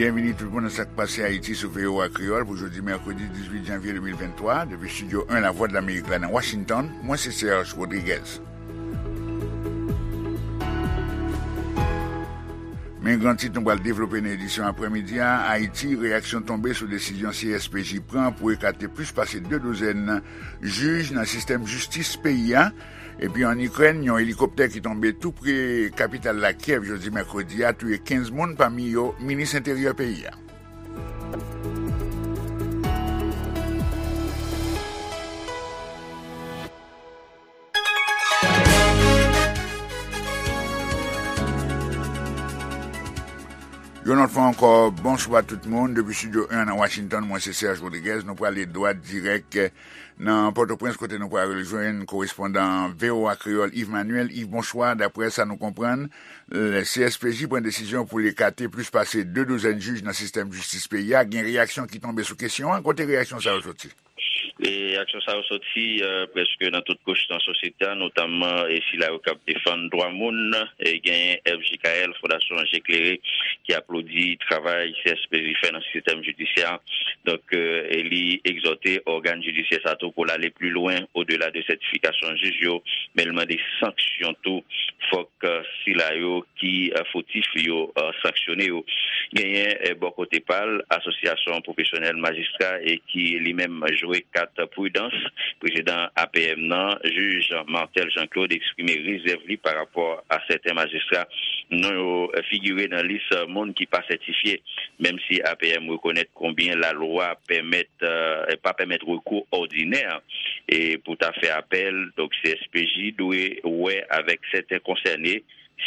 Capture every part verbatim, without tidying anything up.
Byenvini tout moun nan Sa k Pase Ayiti sou V O A Kreyòl pou jodi mèkredi dizuit janvye de mil venntwa, depi estidyo en Lavwadlamerik la nan Washington, mwen se Serge Rodriguez. Men gran tit nou pral devlope nan edisyon aprèmidi a: Ayiti, reyaksyon tonbe sou desizyon C S P J pran pou ekate plis pase de douzèn jij nan sistèm jistis peyi a. Epi ann Ikrèn, yon elikoptè ki tonbe tou pre kapital la Kyèv jodi mèkredi a touye kenz moun, pami yo minis enteryè peyi a. Yon lòt fwa ankò, bonswa tout moun. Depi estidyo en nan Washington, mwen se Serge Rodriguez. Nou prale dwat dirèk nan Pòtoprens, kote nou pral rejwenn korespondan V O A Kreyòl Yves Manuel. Yves, bonswa. Daprè sa nou konprann, le C S P J pran desizyon pou l ekate plis pase de douzèn jij nan sistèm jistis peyi a. Gen reyaksyon ki tonbe sou kesyon an. Kote reyaksyon sa yo soti? E reyaksyon sa yo soti, eh, prèske nan tout kouch nan sosyete a, notamman, eh, sila yo k ap defann dwa moun. Eh, genyen F J K L, Fondasyon Je Klere, ki aplodi travay C S P J fè nan sistèm jidisyè a. Donk, eh, e li egzòte ògàn jidisyè sa tou pou l ale pli lwen, odela de sètifikasyon jij yo, men l mande sanksyon tou. Fòk, eh, sila yo ki, eh, fotif yo, eh, sanksyone yo. Genyen, eh, bò kote pa l, Asosyasyon Pwofesyonèl Majistra, e ki li menm jwe kat pridans. Prezidan A P M nan, jij Marthel Jean Claude, eksprime rezèv li pa rapò a sèten majistra non yo, eh, figire nan lis, eh, moun ki pa sètifye, menm si A P M rekonèt konbyen lalwa pèmèt, eh, pa pèmèt rekou òdinè, e pou ta fè apèl. Donk, C S P J dwe wè avèk sèten konsène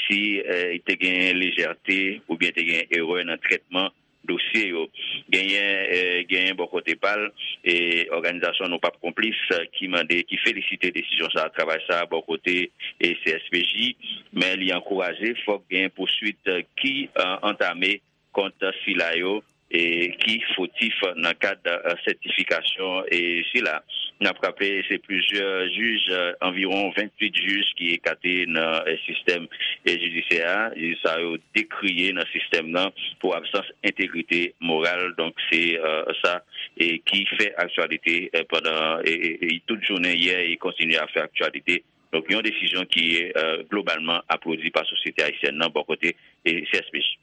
si, eh, te gen lejète oubyen te gen erè nan trètman dosye yo. Genyen, eh, genyen bò kote pa l, e òganizasyon Nou P A P Konplis, eh, ki mande, ki felisite desizyon sa a, travay sa a bò kote, e C S P J, men li ankouraje fòk gen pouswit, eh, ki, eh, antame kont sila yo, e ki fotif nan kad, eh, sètifikasyon, e sila. N ap raple, se plizyè jij, eh, anviwon venntuit jij ki ekate nan, eh, sistèm, eh, jidisyè a. Jij sa yo dekriye nan sistèm nan pou absans entegrite moral. Donk, se, eh, sa, e ki fè aktyalite, eh, pandan, e, e, e tout jounen yè, e kontinye ap fè aktyalite. Donk, yon desizyon ki, eh, globalman aplodi pa sosyete ayisyèn nan bò kote, e, C S P J.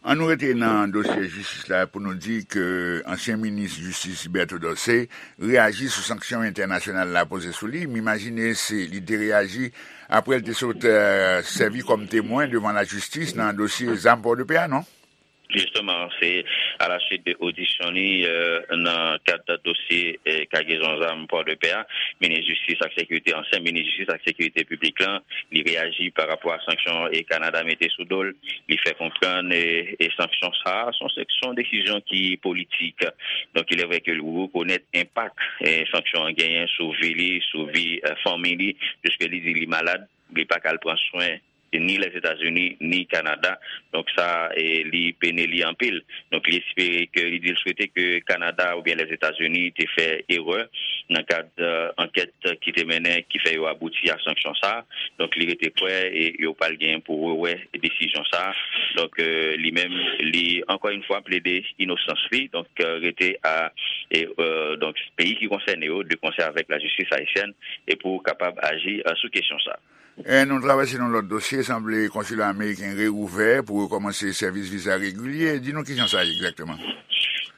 An nou rete nan dosye jistis la pou nou di ke ansyen minis jistis Liberto Dorcé reyaji sou sanksyon entènasyonal la poze sou li. M imajine se li te reyaji apre l te sot, eh, sèvi kòm temwen devan lajistis nan dosye zam Pòdepè a, non? Jisteman, se alaswit de odisyon li, eh, nan kad dosye, eh, kagezon zam Pòdepè a, minis jistis ak sekirite, ansyen minis jistis ak sekirite piblik lan, li reyaji pa rapò a sanksyon, eh, Kanada mete sou do l. Li fè konprann, eh, eh, sanksyon sa a, se yon, se yon desizyon ki politik. Donk, il est vrai ke li rekonèt enpak, eh, sanksyon an genyen sou vi li, sou vi, eh, fanmi li, piske li di li malad, li pa ka al pran swen ni Lèzetazini, ni Kanada. Donk sa, e, li pene li anpil. Donk li espere ke, li di l swete ke Kanada oubyen Lèzetazini te fè erè nan kad, eh, ankèt ki te mennen, ki fè yo abouti a sanksyon sa. Donk li rete kwè e yo pral gen pou rewè desizyon sa. Donk, eh, li menm, li ankò yon fwa plede inosans li. Donk, eh, rete a, e, eh, donk peyi ki konsène yo, de konsè avèk lajistis ayisyèn, e pou kapab aji, eh, sou kesyon sa. E nou travèse nan lòt dosye, sanble konsila ameriken reouvè pou rekòmanse sèvis viza regilye. Di nou kijan sa ye egzakteman?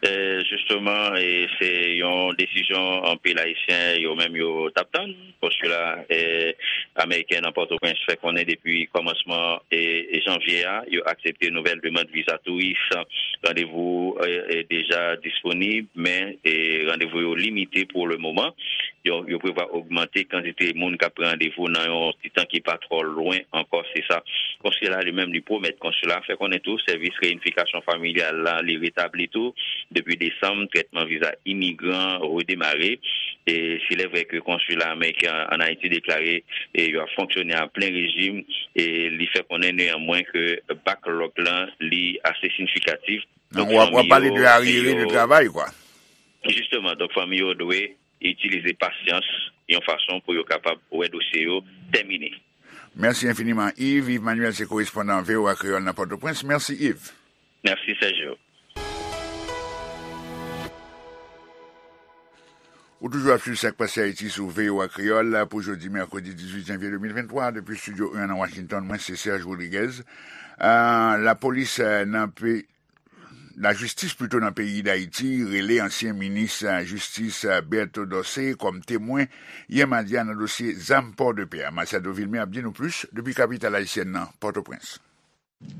E, jisteman, e, se yon desizyon anpil Ayisyen yo menm yo t ap tann. Konsila, e, ameriken nan Pòtoprens fè konnen depi kòmansman, e, janvye a, yo aksepte nouvèl demann viza touris. Randevou, e, e, deja disponib, men, e, randevou yo limite pou le moman. Yo, yo prevwa ogmante kantite moun k ap pran randevou nan yon ti tan ki pa twò lwen ankò, se sa konsila li menm li pwomèt. Konsila fè konnen tou sèvis reyinifikasyon familyal la, li retabli tou. Depi desanm, trètman viza imigran redemare. E s'il est vrai ke konsila ameriken an Ayiti deklare, e, yo ap fonksyone a plen rejim, e li fè konnen neyanmwen ke backlog lan, li ase siyifikatif. Donk, w ap, w ap pale de aryere de travay, kwa. Jisteman, donk, fanmi yo dwe itilize pasyans yon fason pou yo kapab wè dosye yo tèmine. Mèsi enfiniman, Yves. Yves Manuel se korespondan V O A Kreyòl nan Pòtoprens. Mèsi, Yves. Mèsi, Sergio. Ou toujou ap swiv Sa k Pase Ayiti sou V O A Kreyòl pou jodi mèkredi dizuit janvye de mil venntwa, depi estidyo en nan Washington, mwen se Serge Rodriguez. Ah, lapolis, eh, nan pe-, lajistis pito nan peyi Dayiti rele ansyen minis, eh, jistis, eh, Berto Dorcé kòm temwen yè madi a nan dosye zam Pòdepè a. Matiado Vilmé ap di nou plis depi kapital ayisyèn nan, Pòtoprens.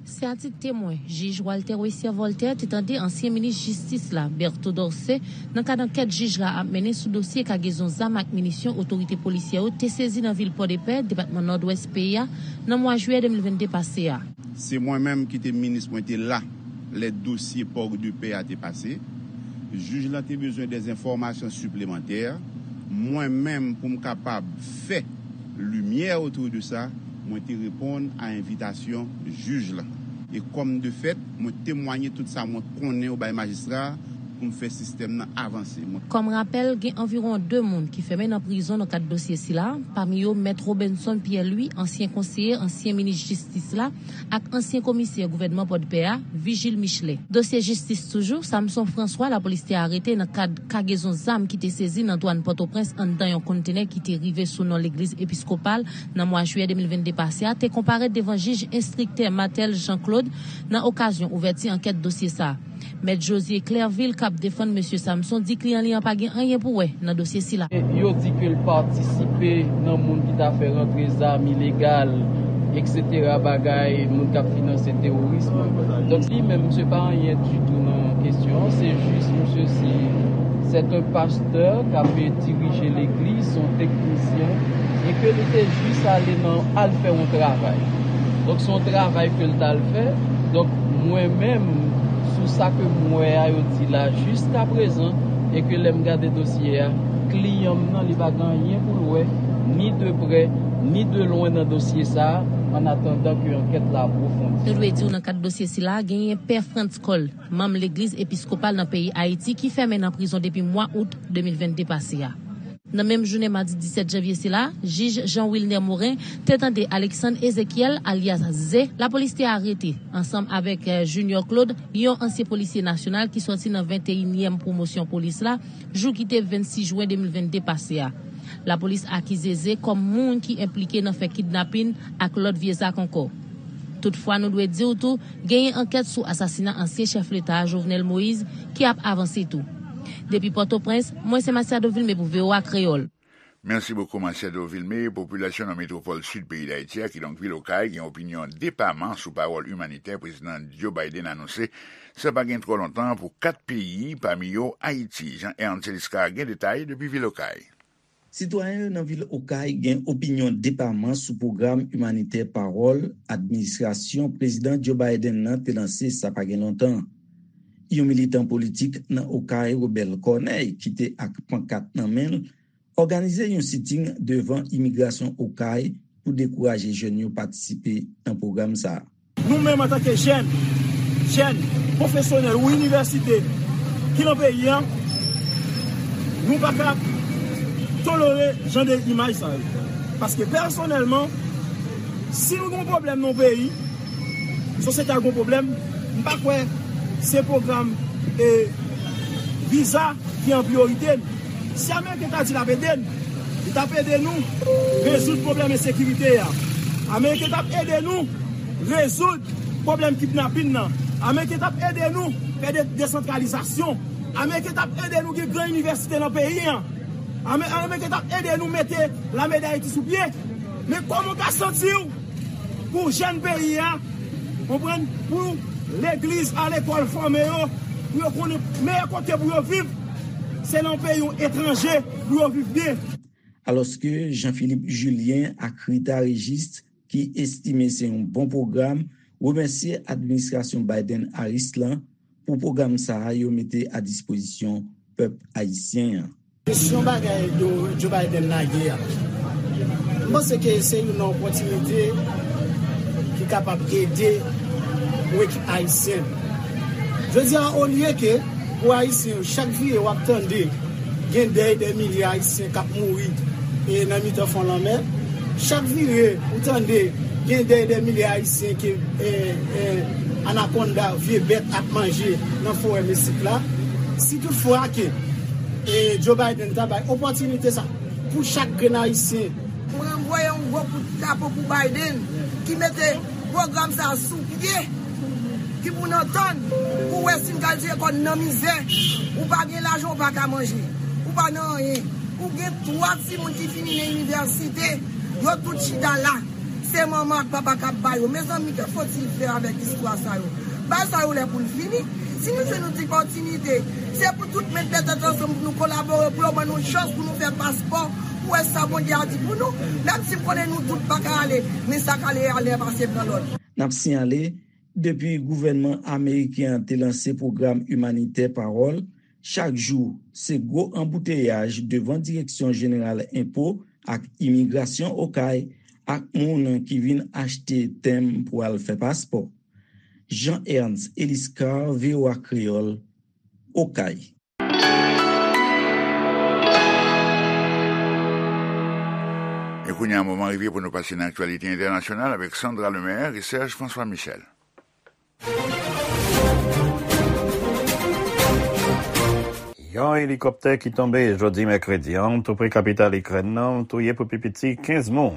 Se a tit temwen, jij Walter Wessier Voltaire te tande ansyen minis jistis la, Berto Dorcé, nan kad ankèt jij la ap mennen sou dosye kagezon zam ak minisyon otorite polisyè yo te sezi nan vil Pòdepè, depatman Nòdwès peyi a, nan mwa jiyè de mil vennde pase a. Se mwen menm ki te minis, mwen te la lè dosye Pòdepè a te pase. Jij lan te bezwen dè enfòmasyon siplemantè. Mwen menm, pou m kapab fè limyè otou de sa, mwen te reponn a envitasyon jij lan. E kòm de fèt, mwen temwanye tout sa mwen konnen yo bay majistra a pou m fè sistèm nan avanse. Mwen Kòm rapèl, gen anviwon de moun ki fèmen nan prizon nan kad dosye sila, pami yo Mèt Robenson Pierre Louis, ansyen konseye ansyen minis jistis la, ak ansyen komisè gouvènman Pòdpè a, Vigile Michelet. Dosye jistis toujou, Samson François, lapolis te arete nan kad kagezon zam ki te sezi nan dwàn Pòtoprens anndan yon kontenè ki te rive sou non legliz episkopal nan mwa jiyè de mil vennde pase a, te konparèt devan jij enstriktè Marthel Jean Claude nan okazyon ouvèti ankèt dosye sa a. Mèt Josué Clervil, k ap defann mesye Samson, di kliyan li an pa gen anyen pou wè nan dosye sila. Yo di ke l patisipe nan moun ki ta fè rantre zam ilegal, et cetera, bagay moun k ap finanse teworism. Donk, li menm, misye pa anyen ditou nan kesyon an. Se jis, misye, se, c'est un pasteur k ap dirije legliz, se yon teknisyen, e ke li te jis ale nan, al fè yon travay. Donk, se yon travay ke l t al fè. Donk, mwen menm, sou sa ke m wè a, yo di la jiskaprezan, e ke lè m gade dosye a, kliyan m nan, li pa gen anyen pou l wè, ni de prè, ni de lwen nan dosye sa a, an atandan ke ankèt la apwofondi. Nou dwe di w nan kad dosye sila, genyen Pè Frantz Cole, manm legliz episkopal nan peyi Ayiti, ki fèmen nan prizon depi mwa out de mil vennde pase a. Nan menm jounen madi disèt janvye sila, jij Jean Wilner Morin te tande Alexandre Ezekiel, alyas Ze, lapolis te arete, ansanm avèk, eh, Junior Claude, yon ansyen polisye nasyonal ki sòti nan venteyinyèm pwomosyon polis la, jou ki te vennsis jen de mil vennde pase a. Lapolis akize Ze kòm moun ki enplike nan fè kidnapin ak lòt vye zak ankò. Toutfwa, nou dwe di w tou, genyen ankèt sou asasina ansyen chèf leta a, Jovenel Moïse, ki ap avanse tou. Depi Pòtoprens, mwen se Matiado Vilmé pou V O A Kreyòl. Mèsi bokou, Matiado Vilmé. Popilasyon nan metwopòl sid peyi Dayiti a, kidonk vil Okay, gen opinyon depaman sou pawòl imanitè prezidan Joe Biden anonse, sa pa gen twò lontan, pou kat peyi, pami yo Ayiti. Jean Ernst Celisca gen detay depi vil Okay. Sitwayen yo nan vil Okay gen opinyon depaman sou pwogram imanitè pawòl administrasyon prezidan Joe Biden nan te lanse sa pa gen lontan. Yon militan politik nan Okay, Robert Corneille, ki te ak pankat nan men l, òganize yon siting devan imigrasyon Okay pou dekouraje jèn yo patisipe nan pwogram sa a. Nou menm antanke jèn, jèn, pwofesyonèl ou inivèsite ki nan peyi a, nou pa ka tolere jan de imaj sa yo. Paske pèsonèlman, si nou gen yon pwoblèm nan yon peyi, sosyete a gen yon pwoblèm, m pa kwè se pwogram, e, viza ki an priyorite n. Si Ameriken ta di l ap ede n, li t ap ede nou rezoud pwoblèm ensekirite a. Ameriken t ap ede nou rezoud pwoblèm kidnapin nan. Ameriken t ap ede nou fè de-, desantralizasyon. Ameriken t ap ede nou gen gran inivèsite nan peyi a. Ame-, Ameriken t ap ede nou mete lame Dayiti sou pye. Men kòman w ka santi w pou jèn peyi a, konprann, pou legliz, a lekòl, fòme yo, pou yo konnen meyè kote pou yo viv, se nan yon peyi etranje pou yo viv byen. Alòske Jean Philippe Julien ak Rita Régis, ki estime se yon bon pwogram, remèsye administrasyon Biden-Harris lan pou pwogram sa a yo mete a dispozisyon pèp ayisyen an. Kesyon bagay Joe, Joe Biden lage a, m panse ke se youn nan opòtinite ki kapab ede pou ekip ayisyen. Jodi a, olye ke pou ayisyen yo, chak vire w ap tande gen dèy dè milye ayisyen k ap mouri, e, nan mitan fon lanmè. Chak vire ou tande gen dèy dè milye ayisyen ke, e, e, anakonda, vye bèt ap manje nan forè Mesik la. Si toutfwa ke E Joe Biden ta bay opòtinite sa pou chak grenn Ayisyen. Mwen voye yon gwo kout chapo pou Biden ki mete pwogram sa sou pye, ki pou n antann, pou wè si n ka jere kò n nan mizè. Ou pa gen lajan, ou pa ka manje, ou pa nan anyen. Ou gen twa timoun ki fini nan inivèsite, yo tout chita la. Se manman ak papa k ap ba yo. Mezanmi, que faut-il faire avec istwa sa yo? Bagay sa yo lè pou l fini. Si nou jwenn yon ti opòtinite, se pou tout met tèt ansanm pou nou kolabore, pou yo ban nou chans pou nou fè paspò, pou wè sa Bondye a di pou nou. Menm si m konnen nou tout pa ka ale, men sa k ale a lè pase pran lòt. N ap siyale, depi gouvènman ameriken an te lanse pwogram imanitè Pawòl, chak jou, se gwo anbouteyaj devan Direksyon Jeneral Enpo ak Imigrasyon Okay ak moun ki vin achte tenm pou al fè paspò. Jean Ernst Eliscar, V O A Kreyòl, Okay. E kounye a, moman rive pou nou pase nan aktyalite entènasyonal avèk Sandra Lemaire e Serge François Michel. Yon elikoptè ki tonbe jodi mèkredi an, tou pre kapital Ikrèn nan, touye pou pi piti kenz moun,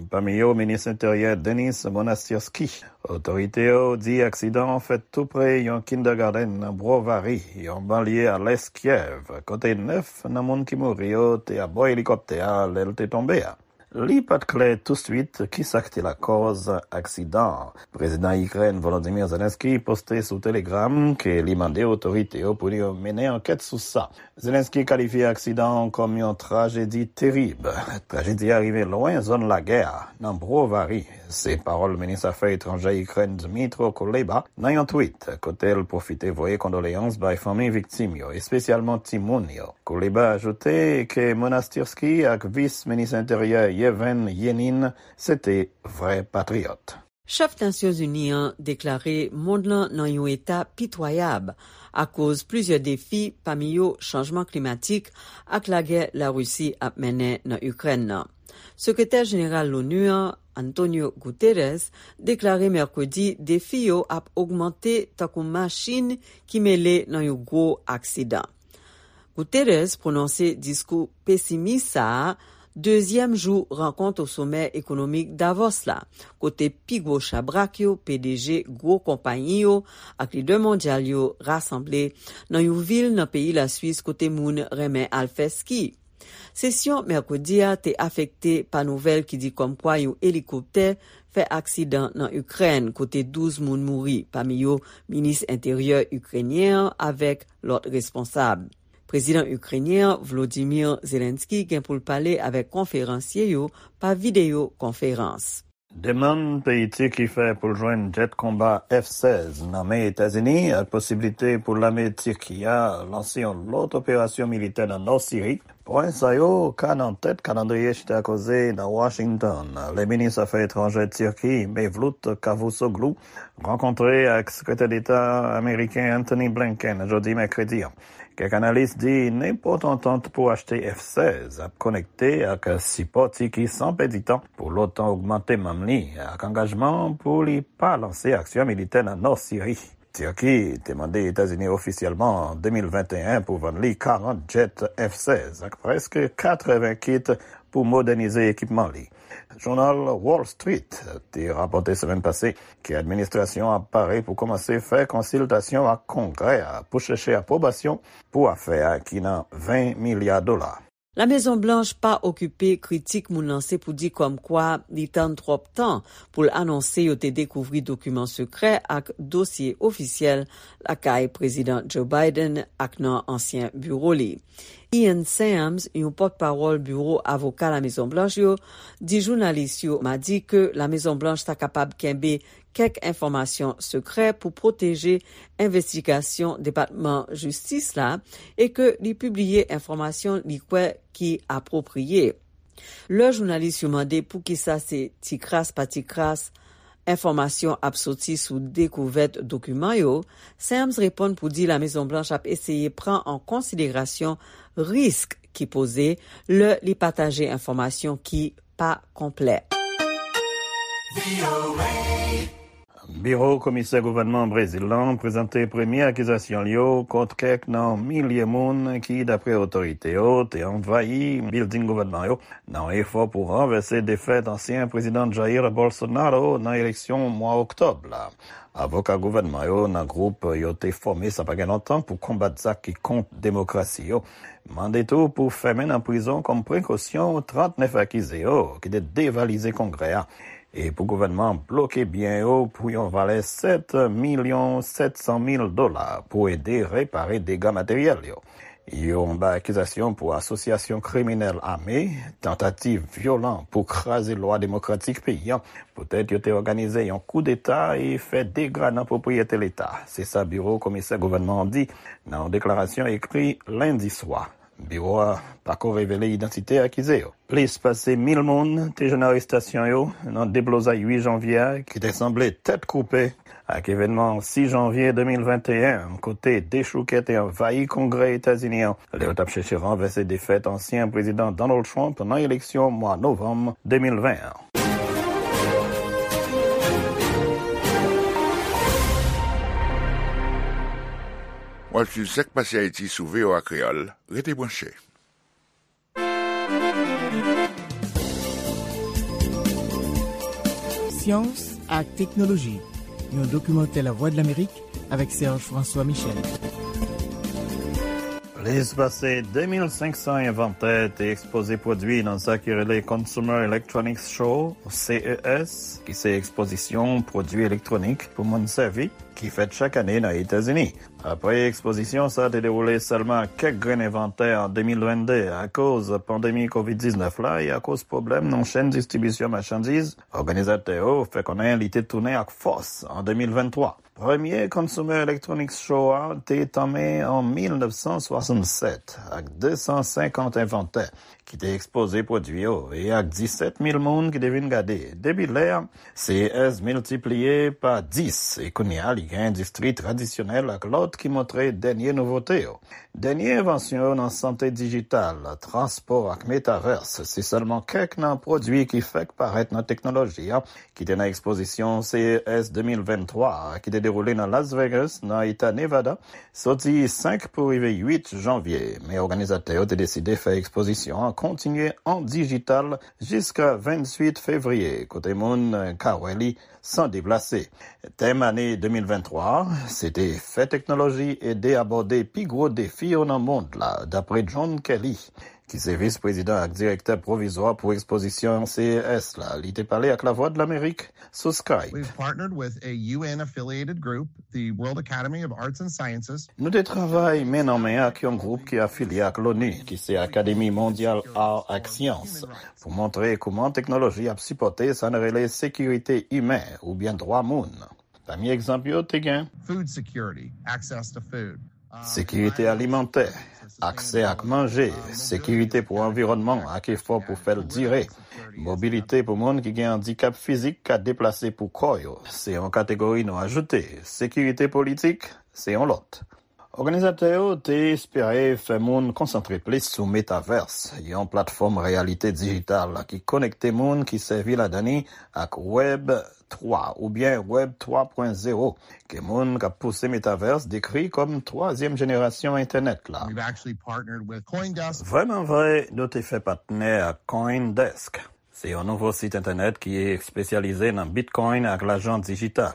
pami yo minis enteryè Denis Monastirski. Otorite yo di aksidan an fèt tou pre yon kindergarten nan Brovary, yon banlye a lès Kyèv, kote nèf nan moun ki mouri yo te abò elikoptè a lè l te tonbe a. Li pa t klè touswit kisa k te lakòz aksidan an. Prezidan Ikrèn Volodymyr Zelensky poste sou Telegram ke li mande otorite yo pou yo mennen ankèt sou sa. Zelensky kalifye aksidan an kòm yon trajedi terib. Trajedi a rive lwen zòn lagè a, nan Brovary, se pawòl minis afè etranjè Ikrèn Dmytro Kuleba nan yon tweet, kote l pwofite voye kondoleyans bay fanmi viktim yo, espesyalman timoun yo. Kuleba ajoute ke Monastirski ak vis minis enteryè Yevhen Yenin se te vrè patriyòt. Chèf Nasyonzini an deklare mond lan nan yon eta pitwayab akoz plizyè defi, pami yo chanjman klimatik ak lagè Larisi ap mennen nan Ikrèn nan. Sekretè Jeneral Lonu an, Antonio Guterres, deklare mèkredi defi yo ap ogmante tankou machin ki mele nan yon gwo aksidan. Guterres pwononse diskou pesimis sa a dezyèm jou rankont o somè ekonomik Davos la, kote pi gwo chabrak yo, P D G gwo konpayi yo ak lidè mondyal yo rasanble nan yon vil nan peyi Laswis kote moun renmen al fè ski. Sesyon mèkredi a te afekte pa nouvèl ki di kòmkwa yon elikoptè fè aksidan nan Ikrèn, kote douz moun mouri, pami yo minis enteryè ikrenyen an avèk lòt responsab. Prezidan ikrenyen an, Volodymyr Zelensky, gen pou l pale avèk konferansye yo pa videyo konferans. Demann peyi Tiki fè pou l jwenn jèt konba F sèz nan men Etazini ak posiblite pou lame Tiki a lanse yon lòt operasyon militè nan nò Siri. Pwen sa yo ka nan tèt kalandriye chita koze nan Washington, lè minis afè etranjè Tiki, Mevlut Cavusoglu, rankontre ak sekretè deta ameriken Antony Blinken jodi mèkredi an. Kèk analis di nenpòt antant pou achte F sèz ap konekte ak sipò Tiki san pèdi tan pou l'OTAN ogmante manm li ak angajman pou li pa lanse aksyon militè nan nò Siri. Tiki te mande Etazini ofisyèlman an de mil venteyen pou vann li karant jèt F sèz ak prèske katreven kit pou modènize ekipman li. Jounal Wall Street te rapòte semèn pase ke administrasyon an ap pare pou kòmanse fè konsiltasyon ak Kongrè a pou chèche apwobasyon pou afè a ki nan ven milya dola. Lamezon Blanch pa okipe kritik moun lanse pou di kòmkwa li tann twòp tan pou l anonse yo te dekouvri dokiman sekrè ak dosye ofisyèl lakay Prezidan Joe Biden ak nan ansyen biwo li. Ian Sams, yon pòtpawòl biwo avoka Lamezon Blanch yo, di jounalis yo madi ke Lamezon Blanch ta kapab kenbe kèk enfòmasyon sekrè pou pwoteje envestigasyon Depatman Jistis la e ke li pibliye enfòmasyon li kwè ki apwopriye. Lè jounalis yo mande poukisa se ti kras pa ti kras enfòmasyon ap soti sou dekouvèt dokiman yo, Sams reponn pou di Lamezon Blanch ap eseye pran an konsiderasyon risk ki poze lè li pataje enfòmasyon ki pa konplè. Biwo komisè gouvènman Brezil lan prezante premye akizasyon l yo kont kèk nan milye moun ki, dapre otorite yo, te anvayi bilding gouvènman yo nan yon efò pou ranvèse defèt ansyen prezidan Jair Bolsonaro nan eleksyon mwa oktòb la. Avoka gouvènman yo nan gwoup yo te fòme sa pa gen lontan pou konbat zak ki kont demokrasi yo mande tou pou fèmen nan prizon kòm prekosyon trannèf akize yo ki te devalize Kongrè a e pou gouvènman an bloke byen yo pou yon valè sèt milyon sèt san mil dola pou ede repare dega materyèl yo. Yo anba akizasyon pou asosyasyon kriminèl ame, tantativ vyolan pou kraze lwa demokratik peyi a, poutèt yo te òganize yon koudeta e fè dega nan pwopriyete Leta. Se sa biwo komisè gouvènman an di nan yon deklarasyon ekri lendi swa. Biwo a pako revele idantite akize yo. Plis pase mil moun te jwenn arestasyon yo nan deblozay uit janvye a ki te sanble tèt koupe ak evènman sis janvye de mil venteyen, kote dechoukè te anvayi Kongrè Etazini an lè yo t ap chèche ranvèse defèt ansyen prezidan Donald Trump nan eleksyon mwa novanm de mil ven an. W ap swiv Sak Pase Ayiti sou V O A Kreyòl. Rete branche. Syans ak teknoloji, yon dokimantè Lavwadlamerik avèk Serge François Michel. Plis pase de mil senk san envantè te ekspoze pwodui nan sa ki rele Consumer Electronics Show, C E S, ki se ekspozisyon pwodui elektwonik pou moun sèvi, ki fèt chak ane nan Etazini. Apre ekspozisyon sa te dewoule sèlman ak kèk grenn envantè an de mil vennde akoz pandemi kovid diznèf la e akoz pwoblèm nan chèn distribisyon machandiz, òganizatè yo fè konnen li te tounen ak fòs an de mil venntwa. Premye Consumer Electronics Show a te tanmen an mil nèf san swasannsèt ak de san senkant envantè ki te ekspoze pwodui yo e ak disèt mil moun ki te vin gade. Depi lè a, C E S miltipliye pa dis e kounye a li gen endistri tradisyonèl ak lòt ki montre dènye nouvote yo. Dènye envansyon yo nan sante dijital, transpò ak metavès se sèlman kèk nan pwodui ki fèk parèt nan teknoloji a ki te nan ekspozisyon C E S de mil venntwa a ki te dewoule nan Las Vegas, nan eta Nevada, soti senk pou rive uit janvye. Men òganizatè yo te deside fè ekspozisyon an kontinye an dijital jiska venntuit fevriye, kote moun ka wè li san deplase. Tèm ane de mil venntwa a, se te fè teknoloji ede abòde pi gwo defi yo nan mond la, dapre John Kelly, ki se vis prezidan ak direktè pwovizwa pou ekspozisyon C E S la. Li te pale ak Lavwadlamerik sou Skype. We've partnered with a U N affiliated group, the World Academy of Arts and Sciences. Nou te travay men nan men ak yon gwoup ki afilye ak l'ONU, ki se Akademi Mondyal Ar ak Syans, pou montre kouman teknoloji ap sipòte sa n rele sekirite imen oubyen dwa moun. Pami egzanp yo te gen. Food security, access to food. Sekirite alimantè, aksè ak manje, sekirite pou anviwònman ak efò pou fè l dire. Mobilite pou moun ki gen andikap fizik ka deplase pou kò yo, se yon kategori nou ajoute. Sekirite politik, se yon lòt. Òganizatè yo te espere fè moun konsantre plis sou metavès, yon platfòm reyalite dijital ki konekte moun ki sèvi ladan li ak Web twa oubyen Web twa pwen zewo, ke moun k ap pouse metavès dekri kòm twazyèm jenerasyon entènèt la. Vrèmanvre, nou te fè patnè ak CoinDesk. Se yon nouvo sit entènèt ki espesyalize nan Bitcoin ak lajan dijital.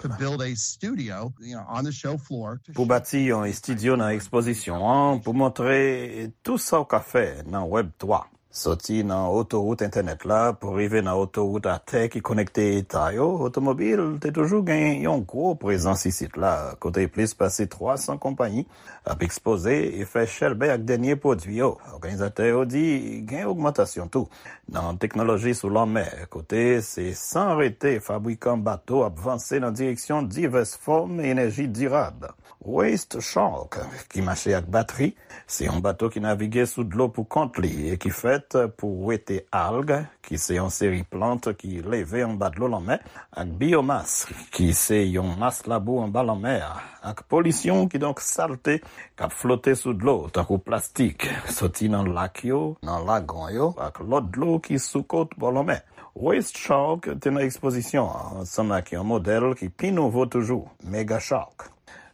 Pou bati yon estidyo nan ekspozisyon an pou montre tou sa w ka fè nan Web twa. Soti nan otowout entènèt la pou rive nan otowout atè ki konekte eta yo, otomobil te toujou gen yon gwo prezans isit la, kote plis pase twa san konpayi ap ekspoze e fè chèlbè ak dènye pwodui yo. Òganizatè yo di gen ogmantasyon tou nan teknoloji sou lanmè, kote se san rete fabrikan bato ap vanse nan direksyon divès fòm enèji dirab. Waste Shark, ki mache ak batri, se yon bato ki navige sou dlo pou kont li e ki fèt pou wete alg, ki se yon seri plant ki leve anba dlo lanmè, ak biyomas, ki se yon mas labou anba lanmè a, ak polisyon, kidonk salte, k ap flote sou dlo, tankou plastik, soti nan lak yo, nan lagon yo, ak lòt dlo ki sou kot bò lanmè. Waste Shark te nan ekspozisyon an, ansanm ak yon modèl ki pi nouvo toujou, Mega Shark.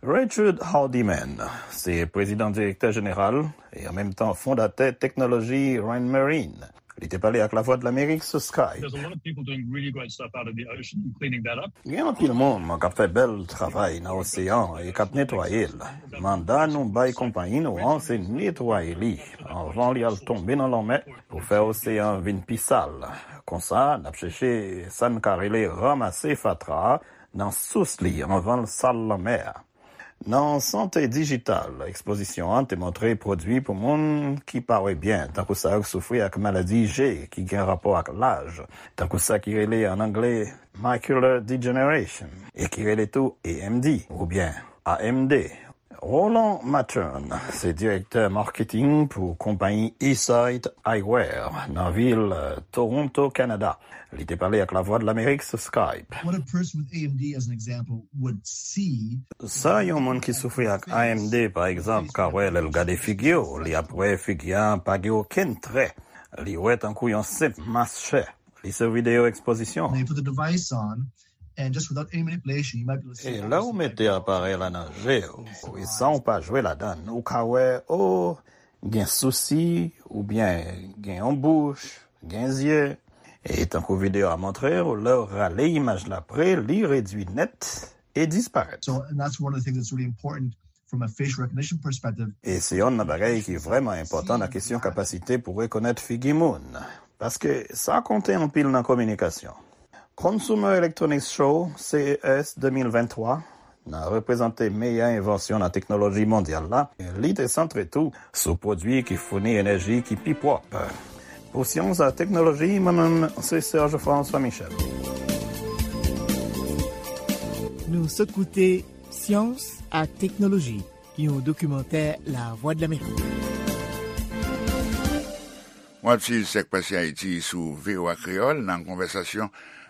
Richard Hardiman se prezidan direktè jeneral e an menm tan fondatè teknoloji Rain Marine. Li te pale ak Lavwadlamerik sou Skype. There's a lot of people doing really great stuff out of the ocean and cleaning that up. Gen anpil moun k ap fè bèl travay nan oseyan e k ap netwaye l. Manda nou bay konpayi nou an se netwaye li anvan li al tonbe nan lanmè pou fè oseyan vin pi sal. Konsa, n ap chèche sa n ka rele ranmase fatra a nan sous li anvan l sal lanmè a. Nan sante dijital, ekspozisyon an te montre pwodui pou moun ki pa wè byen, tankou sa yo k soufri ak maladi je ki gen rapò ak laj, tankou sa ki rele an angle macular degeneration, e ki rele tou A M D oubyen A M D. Roland Mattern se direktè marketing pou konpayi Eyesight Eyewear nan vil Toronto, Kanada. Li te pale ak Lavwadlamerik sou Skype. What a person with A M D, as an example, would see Sa yon moun ki soufri ak A M D, pa egzanp, ka wè lè l gade figi w, li ap wè figi a pa gen okenn trè. Li wè tankou yon senp mas chè. Li sou videyo ekspozisyon. They put the device on, and just without any manipulation, you might be able to see. E lè w mete aparèy la nan je w, e san w pa jwe ladan l, ou ka wè, o, gen sousi, oubyen gen yon bouch, gen zye. E tankou videyo a montre w, lè w rale imaj la pre, li redui nèt e disparèt. So, and that's one of the things that's really important from a facial recognition perspective. E se yonn nan bagay ki vrèman enpòtan nan kesyon kapasite pou rekonèt figi moun, paske sa konte anpil nan kominikasyon. Consumer Electronics Show, C E S de mil venntwa, nan reprezante meyè envansyon nan teknoloji mondyal la, li te santre tou sou pwodui ki founi enèji ki pi pwòp. Pou Syans ak Teknoloji, mwen menm se Serge François Michel. Nou sot koute Syans ak Teknoloji, yon dokimantè Lavwadlamerik. W ap swiv Sèk Pase Ayiti sou V O A Kreyòl. Nan konvèsasyon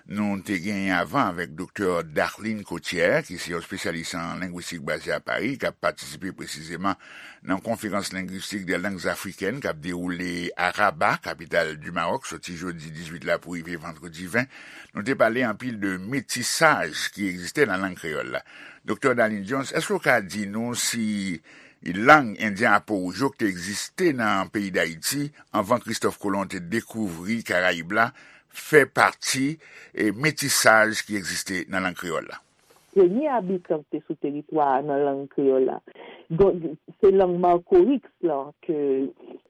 nou te genyen avan avèk Doktè Darline Cotier, ki se yon espesyalis an lengwistik baze a Pari, k ap patisipe presizeman nan Conférence linguistique des langues africaines k ap dewoule a Rabat, kapital di Mawòk, soti jodi dizuit la pou rive vandredi ven. Nou te pale anpil de metisaj ki egziste nan lang kreyòl la. Doktè Darline Jones, èske w ka di nou si lang endyen Apowouj yo ki te egziste nan peyi Dayiti anvan Kristòf Kolon te dekouvri Karayib la fè pati, e, metisaj ki egziste nan lang kreyòl la? Premye abitan ki te sou teritwa a nan lang kreyòl la. Donk, se lang Makoriks lan ke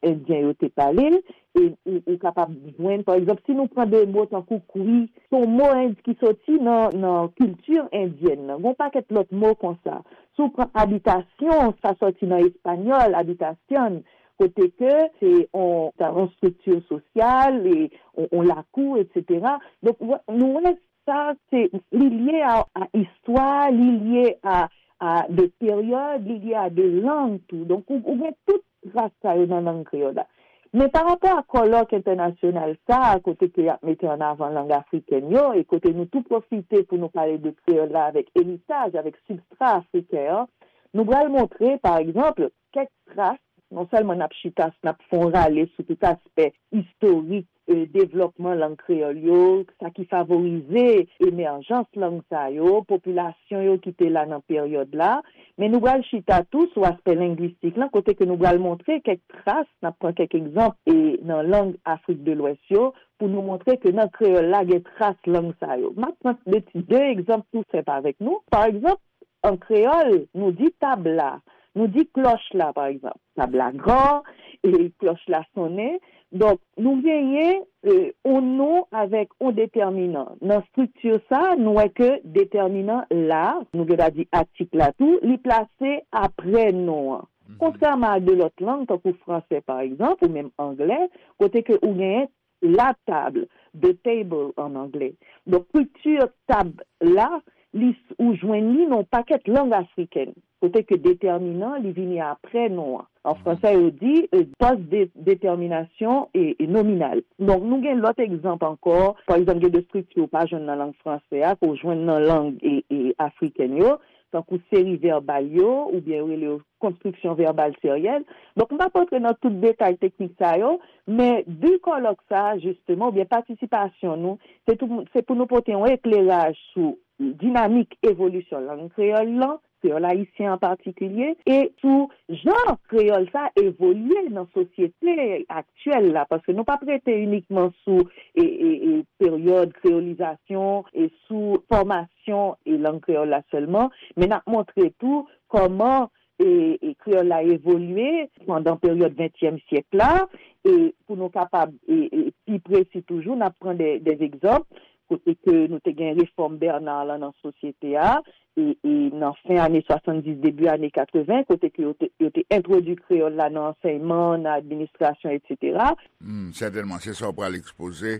Endyen yo te pale l, e ou, ou kapab jwenn, pa egzanp, si nou pran de mo tankou kwi, se yon mo en-, ki soti nan, nan kilti endyèn nan. Gen yon pakèt lòt mo konsa. Si w pran abitasyon, sa soti nan espanyòl, habitación, kote ke se yon, yon estrikti sosyal, e yon, yon lakou, etsetera. Donk, w-, nou wè sa, se, li lye a, a istwa, li lye a, a de peryòd, li lye a de lang tou. Donk, ou, ou gen tout tras sa yo nan lang kreyòl la. Men pa rapò a kòlòk entènasyonal sa a, kote ke y ap mete an avan lang afrikèn yo, e kote nou tou pwofite pou nou pale de kreyòl la avèk eritaj, avèk sibstra afriken an, nou pral montre, pa egzanp, kèk tras, non sèlman n ap chita, n ap fè yon rale sou tout aspè istorik, e, devlòpman lang kreyòl yo, sa ki favorize emèjans lang sa yo, popilasyon yo ki te la nan peryòd la, men nou pral chita tou sou aspè lengwistik lan, kote ke nou pral montre kèk tras, n ap pran kèk egzanp, e, nan lang Afrik de Lwès yo, pou nou montre ke nan kreyòl la gen tras lang sa yo. M ap pran de ti, de egzanp tou senp avèk nou. Pa egzanp, an kreyòl, nou di tab la, nou di klòch la, pa egzanp. Tab la gran, e klòch la sonnen. Donk, nou genyen, e, yon non avèk yon detèminan. Nan estrikti sa, nou wè ke detèminan la, nou gen dwa di atik la tou, li plase aprè non an. Mhm. Kontrèman a de lòt lang, tankou fransè, pa egzanp, ou menm anglè, kote ke ou genyen la table, the table an anglè. Donk, estrikti tab la, li, ou jwenn li nan yon pakèt lang afriken, kote ke detèminan, li vini aprè non an. An fransè, yo di, euh, post-détermination et, et nominale. Donk, nou gen lòt egzanp ankò. Pa egzanp, gen de estrikti ou pa jwenn nan lang fransè a, ke w jwenn nan lang, e, e, afriken yo. tankou seri vèbal yo, oubyen yo rele yo konstriksyon vèbal seryèl. Donk, m p ap rantre nan tout detay teknik sa yo, men bi kòlòk sa a, jisteman, oubyen patisipasyon nou, se tou, se pou nou pote yon ekleraj sou dinamik evolisyon lang kreyòl lan, kreyòl ayisyen an patikilye, e sou jan kreyòl sa evolye nan sosyete aktyèl la, paske nou p ap rete inikman sou e, e, e, peryòd kreyolizasyon e sou fòmasyon e lang kreyòl la sèlman, men n ap montre tou kòman e, e, kreyòl la evolye pandan peryòd ventyèm syèk la, e pou nou kapab e, e, pi presi toujou, n ap pran de, de egzanp, kote ke nou te gen refòm Bernard lan nan sosyete a, e, e nan fen ane swasanndis, debi ane katreven, kote ke yo te, yo te entwodui kreyòl la nan ansèyman, nan administrasyon, etsetera. Hmm, sètènman, se sa w pral ekspoze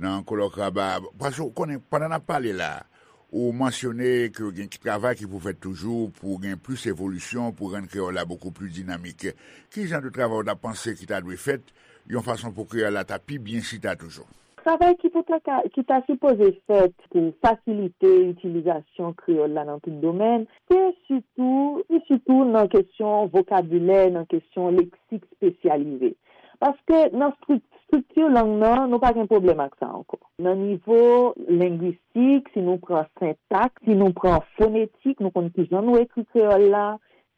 nan kolòk Raba a. Paske w konnen, pandan n ap pale la, ou mansyone ke gen ki travay ki pou fèt toujou pou gen plis evolisyon, pou rann kreyòl la bokou pli dinamik. Ki jan de travay w ta panse ki ta dwe fèt, yon fason pou kreyòl la ta pi byen chita toujou? Travay ki pou ta ka, ki ta sipoze fèt pou fasilite itilizasyon kreyòl la nan tout domèn, se sitou, se sitou nan kesyon vokabilè, nan kesyon leksik espesyalize. Paske nan strik-, estrikti lang nan, nou pa gen pwoblèm ak sa ankò. Nan nivo lengwistik, si nou pran sentaks, si nou pran fonetik, nou konn ki jan nou ekri kreyòl la,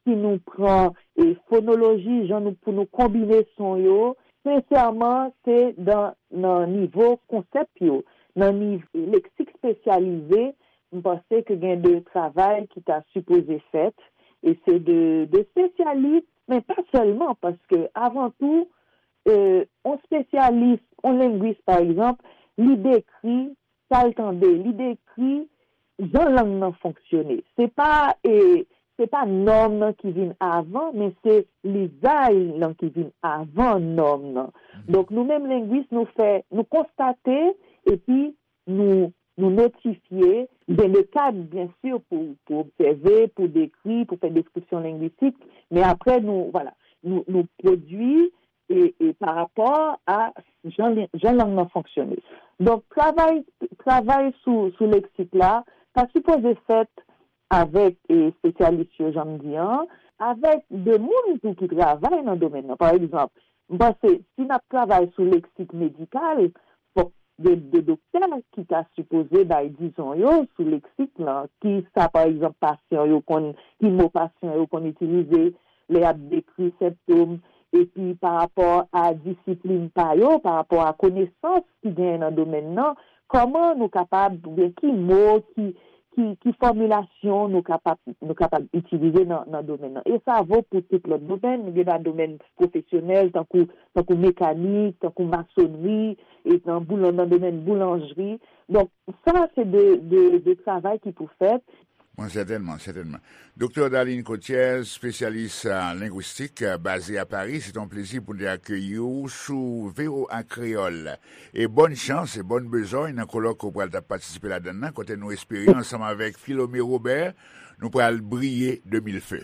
si nou pran e fonoloji, jan nou, pou nou konbine son yo, sensèman, se dan, nan nivo konsèp yo, nan nivo leksik espesyalize, m panse ke gen de travay ki ta sipoze fèt, e se de, de espesyalis, men pa sèlman, paske avan tou, e, yon espesyalis, yon lengwis, pa egzanp, li dekri sa l tande, li dekri jan lang nan fonksyone. Se pa, e, se pa nòm nan ki vin avan, men se lizaj lan ki vin avan nòm nan. Donk, nou menm lengwis, nou fè, nou konstate, epi nou, nou notifye, gen de kad, byen si, pou, pou obsève, pou dekri, pou fè deskripsyon lengwistik, men apre, nou, vwala, nou, nou pwodui e, e pa rapò a jan, jan lang nan fonksyone. Donk, travay, travay sou, sou leksik la, ta sipoze fèt avèk, e, espesyalis yo, jan m di an, avèk de moun tou ki travay nan domèn nan. Pa egzanp, m panse, si n ap travay sou leksik medikal, fòk de, de doktè ki ta sipoze bay dizon yo sou leksik lan, ki sa, pa egzanp, pasyan yo konn, ki mo pasyan yo konn itilize lè y ap dekri sentòm, epi pa rapò a disiplin pa yo, pa rapò a konesans ki genyen nan domèn nan, kòman nou kapab, oubyen ki mo, ki, ki, ki fòmilasyon nou kapab, nou kapab itilize nan, nan domèn nan. E sa vo pou tout lòt domèn, nou gen nan domèn pwofesyonèl, tankou, tankou mekanik, tankou masonri, e nan boulan-, nan domèn boulanjri. Donk, sa, se de, de, de travay ki pou fèt. Bon, sètènman, sètènman. Doktè Darline Cotiez, espesyalis, a, lengwistik, a, baze a Pari, se yon plezi pou n te akeyi w sou V O A Kreyòl. E bòn chans e bòn bezòy nan kolòk ke w pral t ap patisipe ladan l lan, kote nou espere, ansanm avèk Philomé Robert, nou pral briye de mil fe.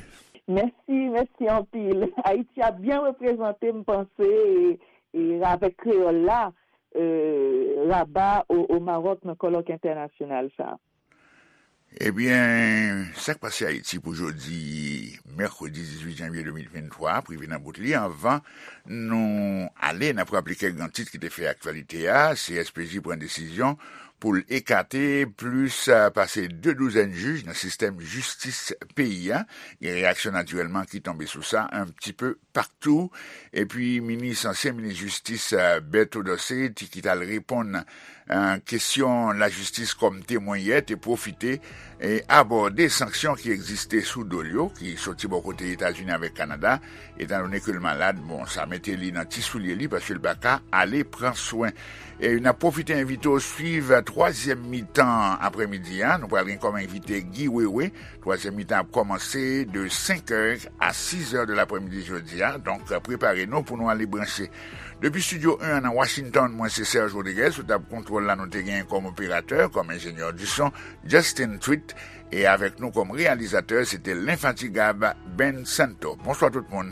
Mèsi, mèsi anpil. Ayiti ap byen reprezante, m panse, e, e avèk kreyòl la, e, Raba o, o Mawòk nan kòlòk entènasyonal sa a. Ebyen, sa k pase Ayiti pou jodi, mèkredi dizuit janvye de mil venntwa, ap rive nan bout li. Anvan nou ale, n ap raple kèk gran tit ki te fè aktyalite a. C S P J pran desizyon pou l ekate plis, a, pase de douzèn jij nan sistèm jistis peyi a. Gen reyaksyon, natirèlman, ki tonbe sou sa, un petit peu partout. Epi minis, ansyen minis jistis, a, Berto Dorcé, ti, ki t al reponn, a, kesyon lajistis kòm temwen yè, te pwofite e abòde sanksyon ki egziste sou do l yo, ki soti bò kote Etazini avèk Kanada, etan done ke l malad. Bon, sa mete li nan ti soulye li, paske l pa ka ale pran swen. E n ap pwofite envite w swiv twazyèm mitan aprèmidi a. Nou pral gen kòm envite Guy Wewe. Twazyèm mitan ap kòmanse de senk è a sis è de laprèmidi jodi a. Donk, prepare nou pou nou ale branche. Depi Estidyo en an nan Washington, mwen se Serge Rodriguez. Sou tab kontwòl la, nou te gen kòm operatè, kòm enjenyè di son, Justin Tweet. E avèk nou kòm reyalizatè, se te lenfatigab Ben Santo. Bonswa tout moun.